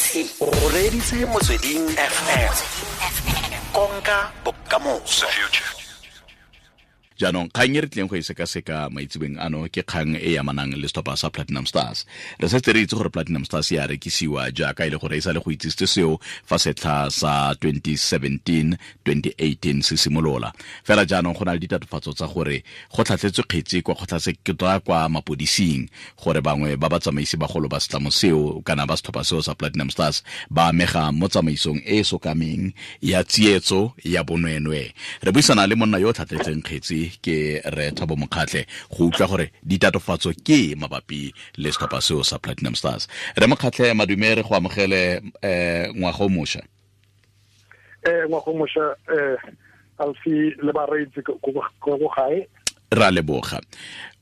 O reditse Motsweding FM, konka bokamoso. Jaanong kgang e re tlileng go e sekaseka maitsebeng ano ke kgang e amanang le setlhopha sa Platinum Stars. Re setse re itse gore Platinum Stars ya rekisiwa jaaka e le gore e sa le go itsisitse seo fa setlha sa 2017-2018 se simolola. Fela jaanong go na le ditatofatso tsa gore go tlhatlhetswe kgetsi kwa kgotlatshekelo, kwa mapodising, gore bangwe ba batsamaisi bagolo ba setlamo seo kana ba setlhopha seo sa Platinum Stars ba amega mo tsamaisong e e sokameng ya tsietso ya bonweenwee. Re buisana le monna yo o tlhatlhetseng kgetsi, ke re Thabo Mokgatlhe, go utlwa gore ditatofatso ke mabapi le setlhopha seo sa Platinum Stars. Re Mokgatlhe, madume, re go amogele ngwaga o mošwa. Ngwaga o mošwa, Alfi le bareetsi ko gae. Ra leboga.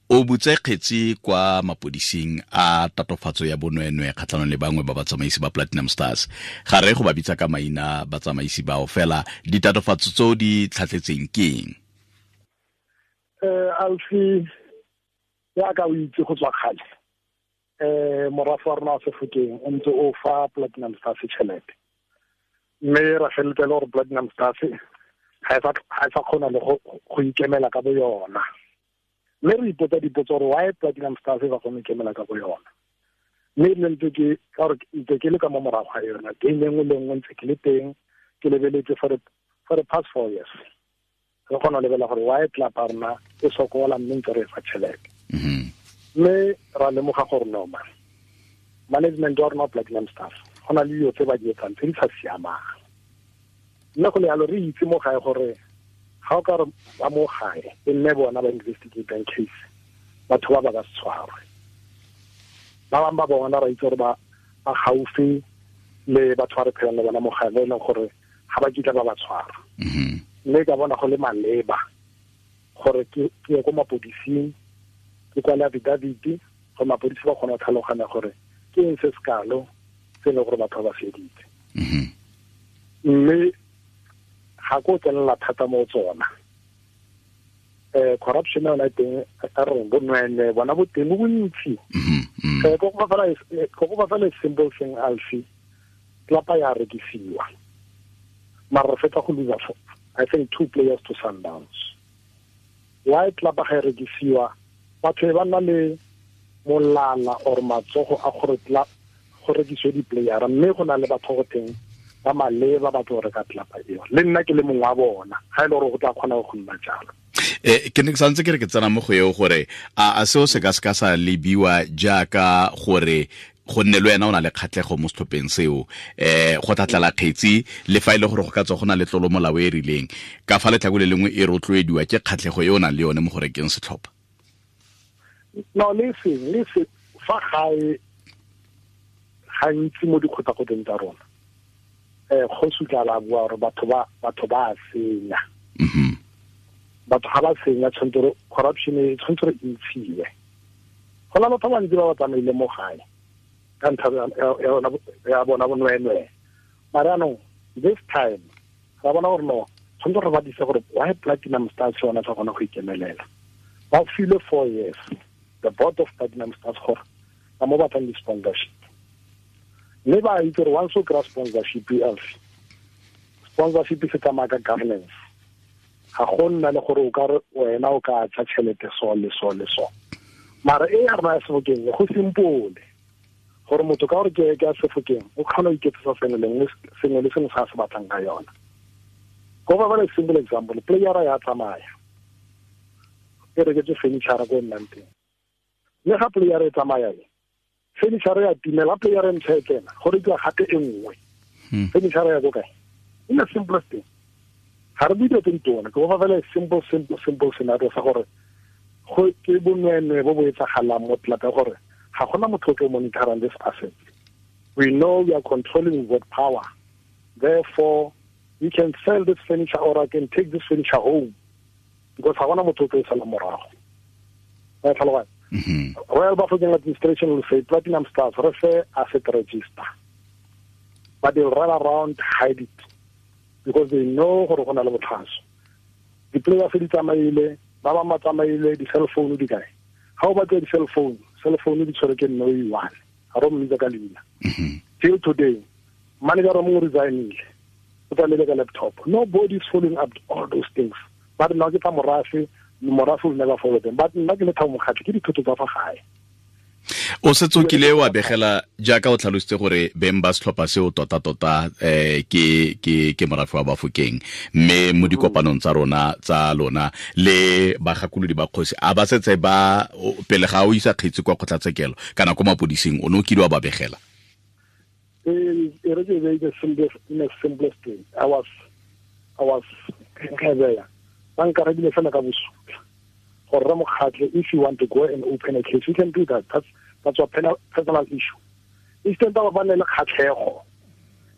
O butse kgetsi kwa mapodising a tatofatso ya bonweenwee kgatlhanong le bangwe ba batsamaisi ba Platinum Stars. Ga re go ba bitsa ka maina batsamaisi bao, fela ditatofatso tseo di tlhatlhetseng ke eng? Alfi, ya ka o itse go tswa kgale, morafe wa rona wa Sefokeng o ntse o fa Platinum Stars tšhelete, mme ra feleletsa e le gore Platinum Stars ga e sa kgona le go ikemela ka bo yona. Mme re ipotsa dipotso gore why Platinum Stars e sa kgone go ikemela ka bo yona. Mme ebile ntse ke ka gore ntse ke le ka mo morago ga yona game e nngwe le nngwe, ntse ke le teng ke lebeletse for the past 4 years, re kgona go lebelela gore why club ya rona e sokola, mme ntse re e fa tšhelete. Mme ra lemoga gore no man, management wa rona Platinum Stars go na le dilo tse ba di etsang tse di sa siamang. Mme go le yalo re itse mo gae gore ga o ka re ba mo gae e nne bona ba investigatang case, batho ba ba ka se tshwarwe. Ba bangwe ba bona ra itse gore ba gaufi le batho ba re phelang le bona mo gae, ba e leng gore ga ba kitla ba ba tshwara. Mme ka bona go le maleba gore ke ye ko mapodising, ke kwale affidavit gore mapodisi ba kgone go tlhaloganya gore ke eng se sekalo se e leng gore batho ba ba feditse. Mme ga ko tsenela thata mo tsona. Corruption yona teng, a re bonweenwee bona bo teng bo bontsi. Ko go fa fela simple thing, Alfi, tlapa ya rekisiwa, mara re fetsa go lose, I think, 2 players to Sundowns. Why tlapa ga e rekisiwa, batho ba nna le molala or matsogo a gore go rekisiwe di-playera, mme go na le batho go teng ba maleba ba tlo reka tlapa eo. Le nna ke le mongwe wa bona, ga e le gore go tla kgona go nna jalo. Ke ne ke santse ke re ke tsena mo go eo gore a seo se ka se ka sa lebiwa jaaka gore go nne le wena o na le kgatlhego mo setlhopheng seo, go tlatlela kgetsi le fa e le gore go ka tswa go na le tlolo molao e rileng, ka fa letlhako le lengwe e rotloediwa ke kgatlhego e o nang le yone mo go rekeng setlhopha? No, le seng, le se fa gae gantsi mo dikgotakgoteng tsa rona, kgosi tla la bua gore batho ba senya. Batho ga ba senya, tshwanetse gore corruption e tshwanetse gore e ntshiwe. Go na batho ba bantsi ba ba tsamaile mo gae ka ntlha ya bona bonweenwee. Mara jaanong this time ra bona gore no, tshwanetse gore ba dise gore why Platinum Stars yona sa kgona go ikemelela. Ba filwe 4 years the board of Platinum Stars gore ba mo batlang di-sponsorship, mme ba itse gore once o kry-a sponsorship, else sponsorship se tsamaya ka governance. Ga go nna le gore o ka re wena o ka tsa tšhelete so le so le so. Mara e ya rona ya Sebokeng go simple gore motho ka gore ke ya Sebokeng o kgona go iketsetsa sengwe le sengwe se a se batlang ka yona. Go ba le simple example, playera ya tsamaya e reketse furniture ko nnang teng, mme ga playera e tsamaya e furniture ya timela, playera e ntšha e tsena go rekiwa gape e nngwe. Furniture ya ko kae? In the simplest thing, ga re bue dilo tse di tona, ke go fa fela simple simple simple scenario sa gore go ke bonweenwee bo bo etsagalang mo tlelapa, gore ga gona motho o tlo monitorang this asset. We know we are controlling with power, therefore we can sell this furniture or I can take this furniture home, because ga gona motho o tlo e sala morago. Ba tlhaloganya? Royal Bafokeng administration will say Platinum Stars re fe asset register, but they'll run around, hide it, because they know gore go na le botlhaso. Di-players di tsamaile, ba bangwe ba tsamaile, di-cell phone di kae? Ga o batla di-cell phone, cell phone di tshwere ke nne o e one, ga re mmitsa ka leina. Till today, Manager o mongwe resignile, o tsamaile ka laptop. Nobody is following up all those things. Ba re nna ke tsa morafe, morafe will never follow them. But nna ke le Thabo Mokgatlhe, ke dithoto tsa fa gae. O setse o kile wa begela jaaka o tlhalositse gore beng ba setlhopha seo tota-tota ke morafe wa Bafokeng, mme mo dikopanong tsa rona tsa lona le bagakolodi ba kgosi a ba setse ba pele ga o isa kgetsi kwa kgotlatshekelo kana ko mapodising, o ne o kile wa ba begela? E re ke be the simplest, in the simplest way. I was ba nkarebile fela ka bosula gore re Mokgatlhe, if you want to go and open a case, you can do that. That's a personal issue. Instead ba ba ne le kgatlhego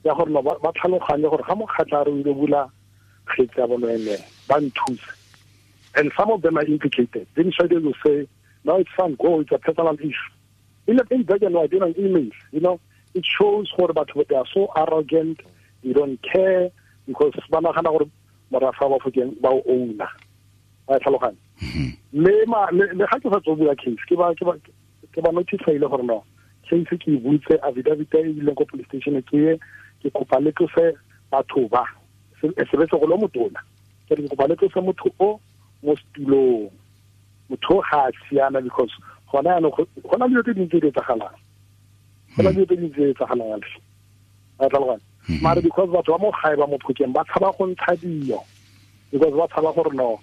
ya gore no ba tlhaloganye gore ga Mokgatlhe a re o ile bula kgetsi ya bonweenwee, ba nthuse. And some of them are implicated. Then they will say, no, it's fine, go, it's a personal issue. In the black and white, in an email, you know, it shows gore batho they are so arrogant, they don't care, because ba nagana gore morafe wa Bafokeng ba o owner. Ba tlhaloganya. Le ga ke sa tswa bula case, ke ba notify-ile gore no, case ke e butse, affidavit e ileng ko police station ke ye, ke kopa le tlose batho ba. Se be se go le motona. Ke re ke kopa le tlose motho o mo setulong. Motho ga a siama because gona jaanong go na le dilo tse dintsi tse di etsagalang. Go na le dilo tse dintsi tse di etsagalang. Ba tlhaloganya. Mare because batho ba mo gae ba mo Phokeng ba tshaba go ntsha dio, because ba tshaba gore no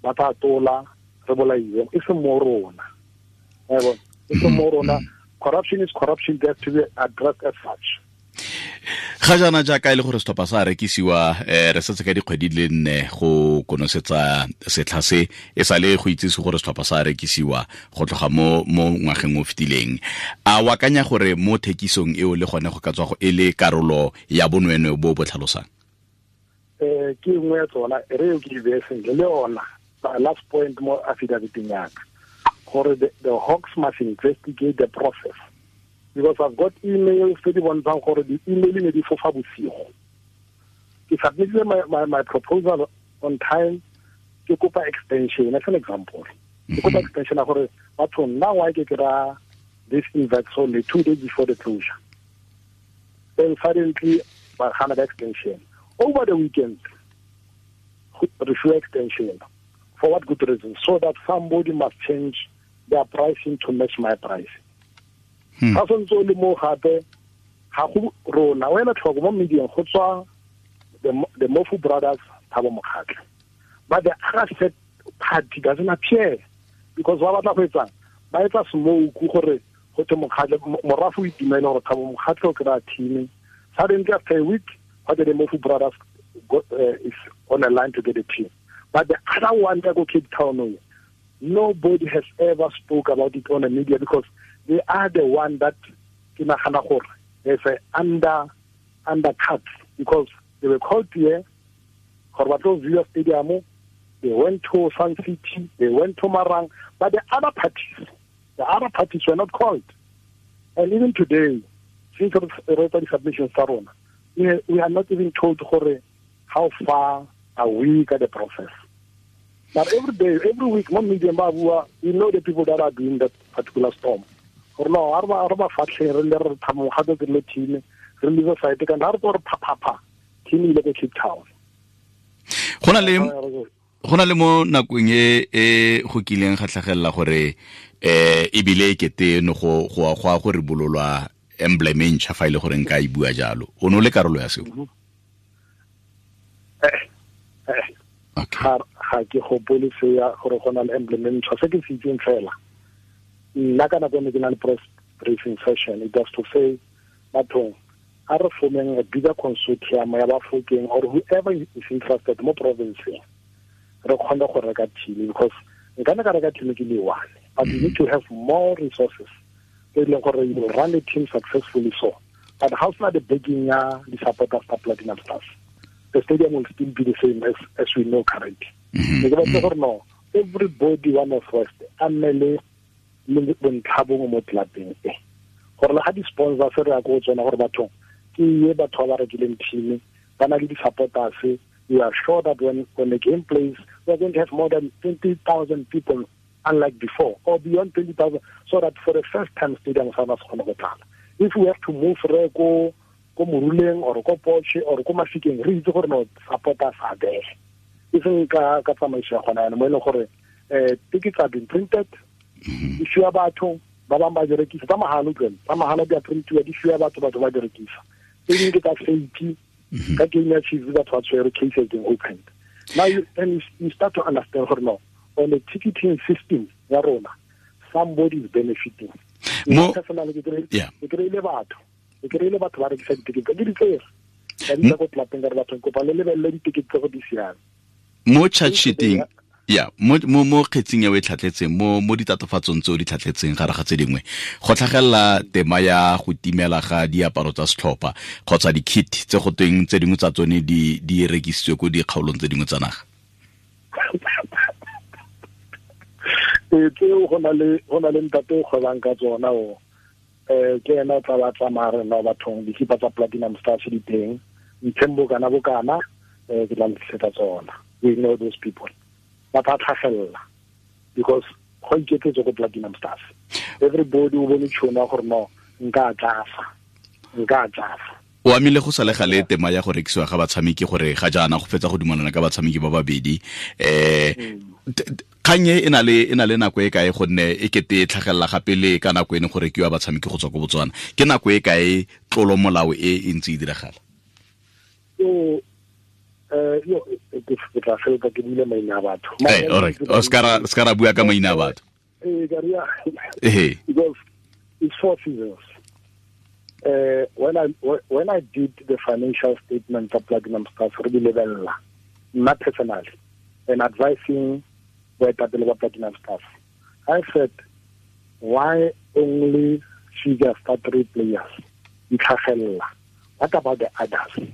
ba tla tola re bolaiwe, e seng mo rona. Wa bona? E seng mo rona. Corruption is corruption, they have to be addressed as such. Ga jaana jaaka e le gore setlhopha sa rekisiwa, re setse ka dikgwedi di le nne go konosetsa setlha se, e sale go itsise gore setlhopha sa rekisiwa go tloga mo ngwageng o fetileng. A o akanya gore mo thekisong eo le gone go ka tswa go e le karolo ya bonweenwee bo bo tlhalosang? Ke nngwe ya tsona, e re eo ke e beye sentle le yona. Last point mo affidaviteng ya ka, gore the Hawks must investigate the process. Because I've got emails tse di bontshang gore di-email ne di fofa bosigo. Ke submitted my proposal on time, ke kopa extension, as an example. Ke kopa extension ya gore batho nna why ke kry-a this invite only 2 days before the closure. Then suddenly ba gana ka extension. Over the weekend, re fiwa extension. For what good reason? So that somebody must change their pricing to match my pricing. Ga santse o le mo gape, ga go rona, wena tlhoko mo medieng go tswa the Mofu brothers, Thabo Mokgatlhe. But the other set party doesn't appear because ba batla go etsang? Ba etsa smoke gore go te Mokgatlhe, morafe o itumele gore Thabo Mokgatlhe o kry-a team. Suddenly after a week, what the Mofu brothers got, is on a line to get a team. But the other one that go Cape Town, nobody has ever spoke about it on the media because they are the one that ke nagana gore there's a undercut because they were called here gore ba tlo view stadium, they went to Sun City, they went to Marang, but the other parties were not called. And even today, since we wrote the submission tsa rona, we are not even told gore how far are we at the process. But every day, every week, mo media ba bua, we know the people that are doing that particular storm. Gore no, a re ba fatlhe, re le re Thabo Mokgatlhe ke le team, re le site ka re gore pha pha pha, team ile ko Cape Town. Go na le mo nakong e go kileng ga tlhagelela gore ebile e kete no go go a go re bololwa emblem e ntšha fa ile gore nka e bua jalo. O no le karolo ya seo? Okay. Ga ke gopole se ya gore go na le emblem e ntšha, se ke se itseng fela. Nna ka nako ne ke na le press briefing session, it was to say bathong a re formeng a bigger consortium ya Bafokeng or whoever is interested mo province-eng, re kgone go reka team, because nka ne ka reka team ke le one, but you need to have more resources tse e leng gore you will run the team successfully. So but how sna the backing ya di-supporters tsa Platinum Stars, the stadium will still be the same as we know currently. Ke batla gore no, everybody one of us a nne le bontlha bongwe mo clubeng e, gore le ga di-sponsors re ya ko tsona gore bathong ke ye batho ba ba rekileng team, ba na le di-supporters. We are sure that when the game plays, we are going to have more than 20,000 people, unlike before, or beyond 20,000, so that for the first time stadium sa rona se kgone go tlala. If we have to move re go ko Moruleng or ko Porsche or ko Mafikeng, re itse gore no supporters are there. E seng ka tsamaiso ya gona mo e leng gore tickets have been printed, di fiwa batho ba bangwe ba di rekisa tsa mahala, utlwela tsa mahala di a printiwa, di fiwa batho, batho ba di rekisa. Tse dingwe ke tsa fake, ka game ya Chiefs batho ba tshwere, case has been opened. Now you start to understand gore no, on the ticketing system ya rona, somebody is benefiting. Mo ke kry-ile batho, ke kry-ile batho ba rekisa ditikete ke di tsere ka di tsa ko tlapeng ka re batho kopa le lebelele ditikete tse go di siame. Mo charge sheeting ya mo kgetsing ya o e tlhatletseng, mo ditatofatsong tse o di tlhatletseng gare ga tse dingwe, go tlhagelela tema ya go timela ga diaparo tsa setlhopha kgotsa di-kit tse go tweng tse dingwe tsa tsone di rekisitswe ko dikgaolong tse dingwe tsa naga. Ee, tseo go na le ntate o kgwebang ka tsona o ke ena o tla ba tsamaya re no bathong dikipa tsa Platinum Stars di teng, ntheng bokana bokana, ke tla le tsona. We know those people. Ba tla tlhagelela because go iketsetse ko Platinum Stars. Everybody o bone tšhono gore no nka tlafa. O amile go sale gale tema ya go rekisiwa ga batshameki gore ga jaana go fetsa go dumelana ka batshameki ba babedi. Kgang e na le nako e kae gonne e kete e tlhagelela gape le ka nako e ne go rekiwa batshameki go tswa ko Botswana? Ke nako e kae tlolo molao e e ntse e diragala? Yo ke tla fela ke buile maina a batho. All right. O ska ra bua ka maina a batho. Because it's 4 seasons. When I did the financial statement of Platinum Stars, re di lebella nna personally and advising boetapele ba Platinum Stars, I said, why only figures start 3 players di tlhagelela? What about the others?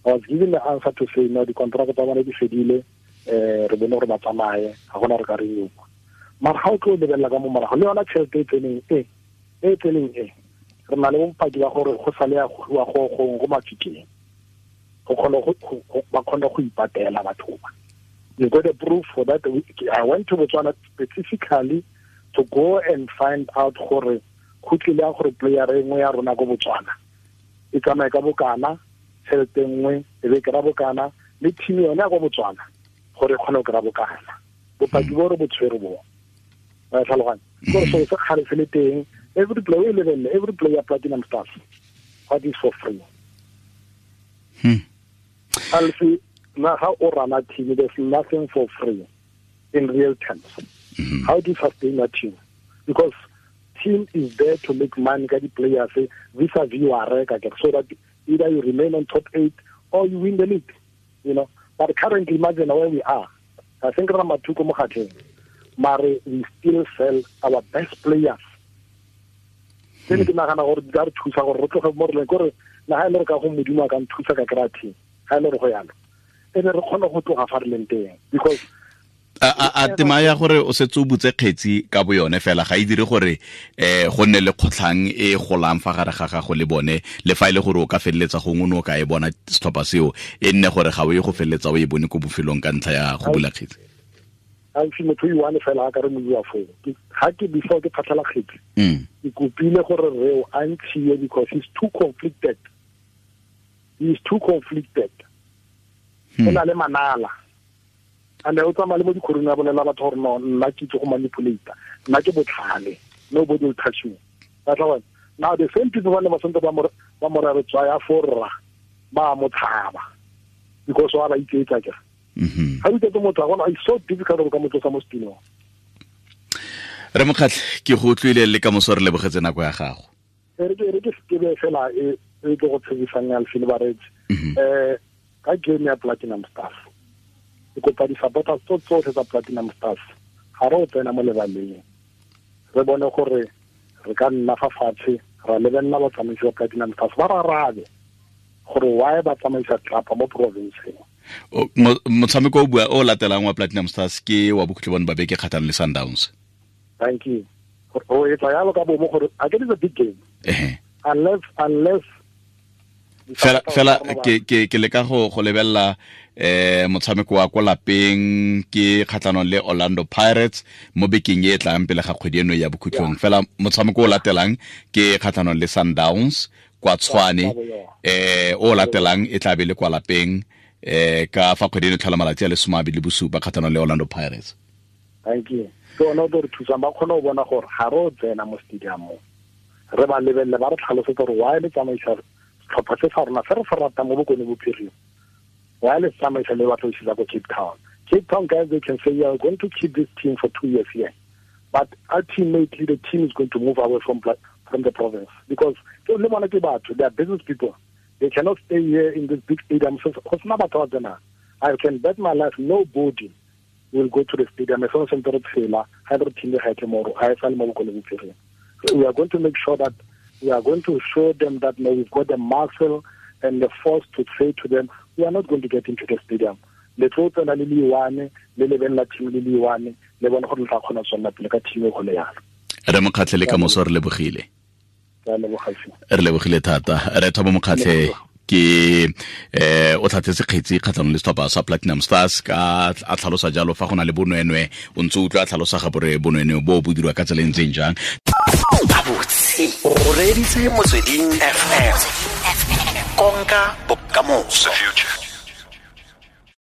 I was given the answer to say, no, the contract tsa bona di fedile, re bone gore ba tsamaye, ga gona re ka renew. Mara ga o tlo lebelela ka mo morago, le yona tšhelete e tseneng e, re na le bopaki ba gore go sale ya go go Mafikeng, go kgona go ba kgona go ipatela batho ba. You got a proof for that. I went to Botswana specifically to go and find out gore go tlile ya gore player e nngwe ya rona ko Botswana e tsamaye ka bokana, tšhelete nngwe e be kry-a bokana, le team yone ya ko Botswana gore e kgone go kry-a bokana. Bopaki bo re bo tshwere bo. Wa tlhaloganya? Gore so se kgale se le teng, every player level, every player Platinum Stars, what is for free? Alfi, na how o run a team, there's nothing for free in real terms. How do you sustain a team? Because team is there to make money, get the players, vis-a-vis you are so that either you remain on top 8 or you win the league, you know. But currently, imagine where we are. I think Ramatuko Mokhatleng, mare we still sell our best players. Ke ke nagana gore di ka re thusa gore re tloge mo re leng, gore na ha ile re ka go Modimo a ka nthusa ka kry-a team, ha ile re go yalo, e be re kgone go tloga fa re leng teng. Because a tema ya gore o setse o butse kgetsi ka bo yone fela ga e dire gore go nne le kgotlhang e golang fa gare ga gago le bone, le fa e le gore o ka feleletsa gongwe o ne o ka e bona setlhopha seo, e nne gore ga o ye go feleletsa o e bone ko bofelong ka ntlha ya go bula kgetsi. Ga motho o one fela a ka re moiwa foo. Ga ke before ke phatlhala kgetsi, ke kopile gore reo a ntshiwe because he's too conflicted. He is too conflicted. O na le manala. And o tsamaya le mo dikhorong a bolela batho gore no, nna ke itse go manipulate, nna ke botlhale, nobody will touch me. That's why now the same people ba ne ba santse ba mo re tswaya for rra, ba mo tshaba because wa ba iketsa ke. Ga o iketse motho a gona, it's so difficult go ka mo tlosa mo setulong. Re Mokgatlhe, ke go utlwile le ka moso, re lebogetse nako ya gago. Re ke sekebe fela e tlo go tshegisang ya lefelo bareetsi. Ka game ya Platinum Stars, ke kopa di-supporters tso tsotlhe tsa Platinum Stars, ga re o tsena mo lebaleng, re bone gore re ka nna fa fatshe ra lebelela batsamaisi ba Platinum Stars, ba rarabe gore why ba tsamaisa tlapa mo provinceng. Motshameko o bua o latelang wa Platinum Stars ke wa bokhutlo bone ba beke kgatlhanong le Sundowns. Thank you. O etsa yalo ka bomo gore a ke is a big game. Unless fela ke leka go lebella motshameko wa ko lapeng ke kgatlhanong le Orlando Pirates mo bekeng e tlang pele ga kgwedi eno ya bokhutlong. Fela motshameko o latelang ke kgatlhanong le Sundowns Kwa Tshwane, o latelang e tla be le kwa lapeng ka fa kgwedi e tlhola malatsi a le 27 kgatlhanong le Orlando Pirates. Thank you. Ke one o tlo re thusang, ba kgone go bona gore ga re o tsena mo stadiumong, re ba lebelele, ba re tlhalosetse gore why le tsamaisa setlhopha se sa rona se re se ratang mo Bokone Bophirima, why le tsamaisa le batla go ko Cape Town. Cape Town guys, they can say, we are going to keep this team for 2 years here, but ultimately the team is going to move away from the province, because le bona ke batho, they are business people. They cannot stay here in this big stadium. So I can bet my life nobody will go to the stadium. So we are going to make sure that we are going to show them that no, we've got the muscle and the force to say to them, we are not going to get into the stadium. Le tlo tsena le liwane, le lebelela team le liwane, le bone gore le tla kgona go tswelela pele ka team e go le yalo. Re Mokgatlhe le ka moso, re lebogile. Re lebogile thata. Re Thabo Mokgatlhe ke o tlhatlhetse kgetsi kgatlhanong le setlhopha sa Platinum Stars ka a tlhalosa jalo fa go na le bonwenwe, o ntse o utlwa a tlhalosa ga bore bonwenwe bo bo dirwa ka tsela e ntseng jang. Gabotse o reeditse Motsweding FM, konka bokamoso.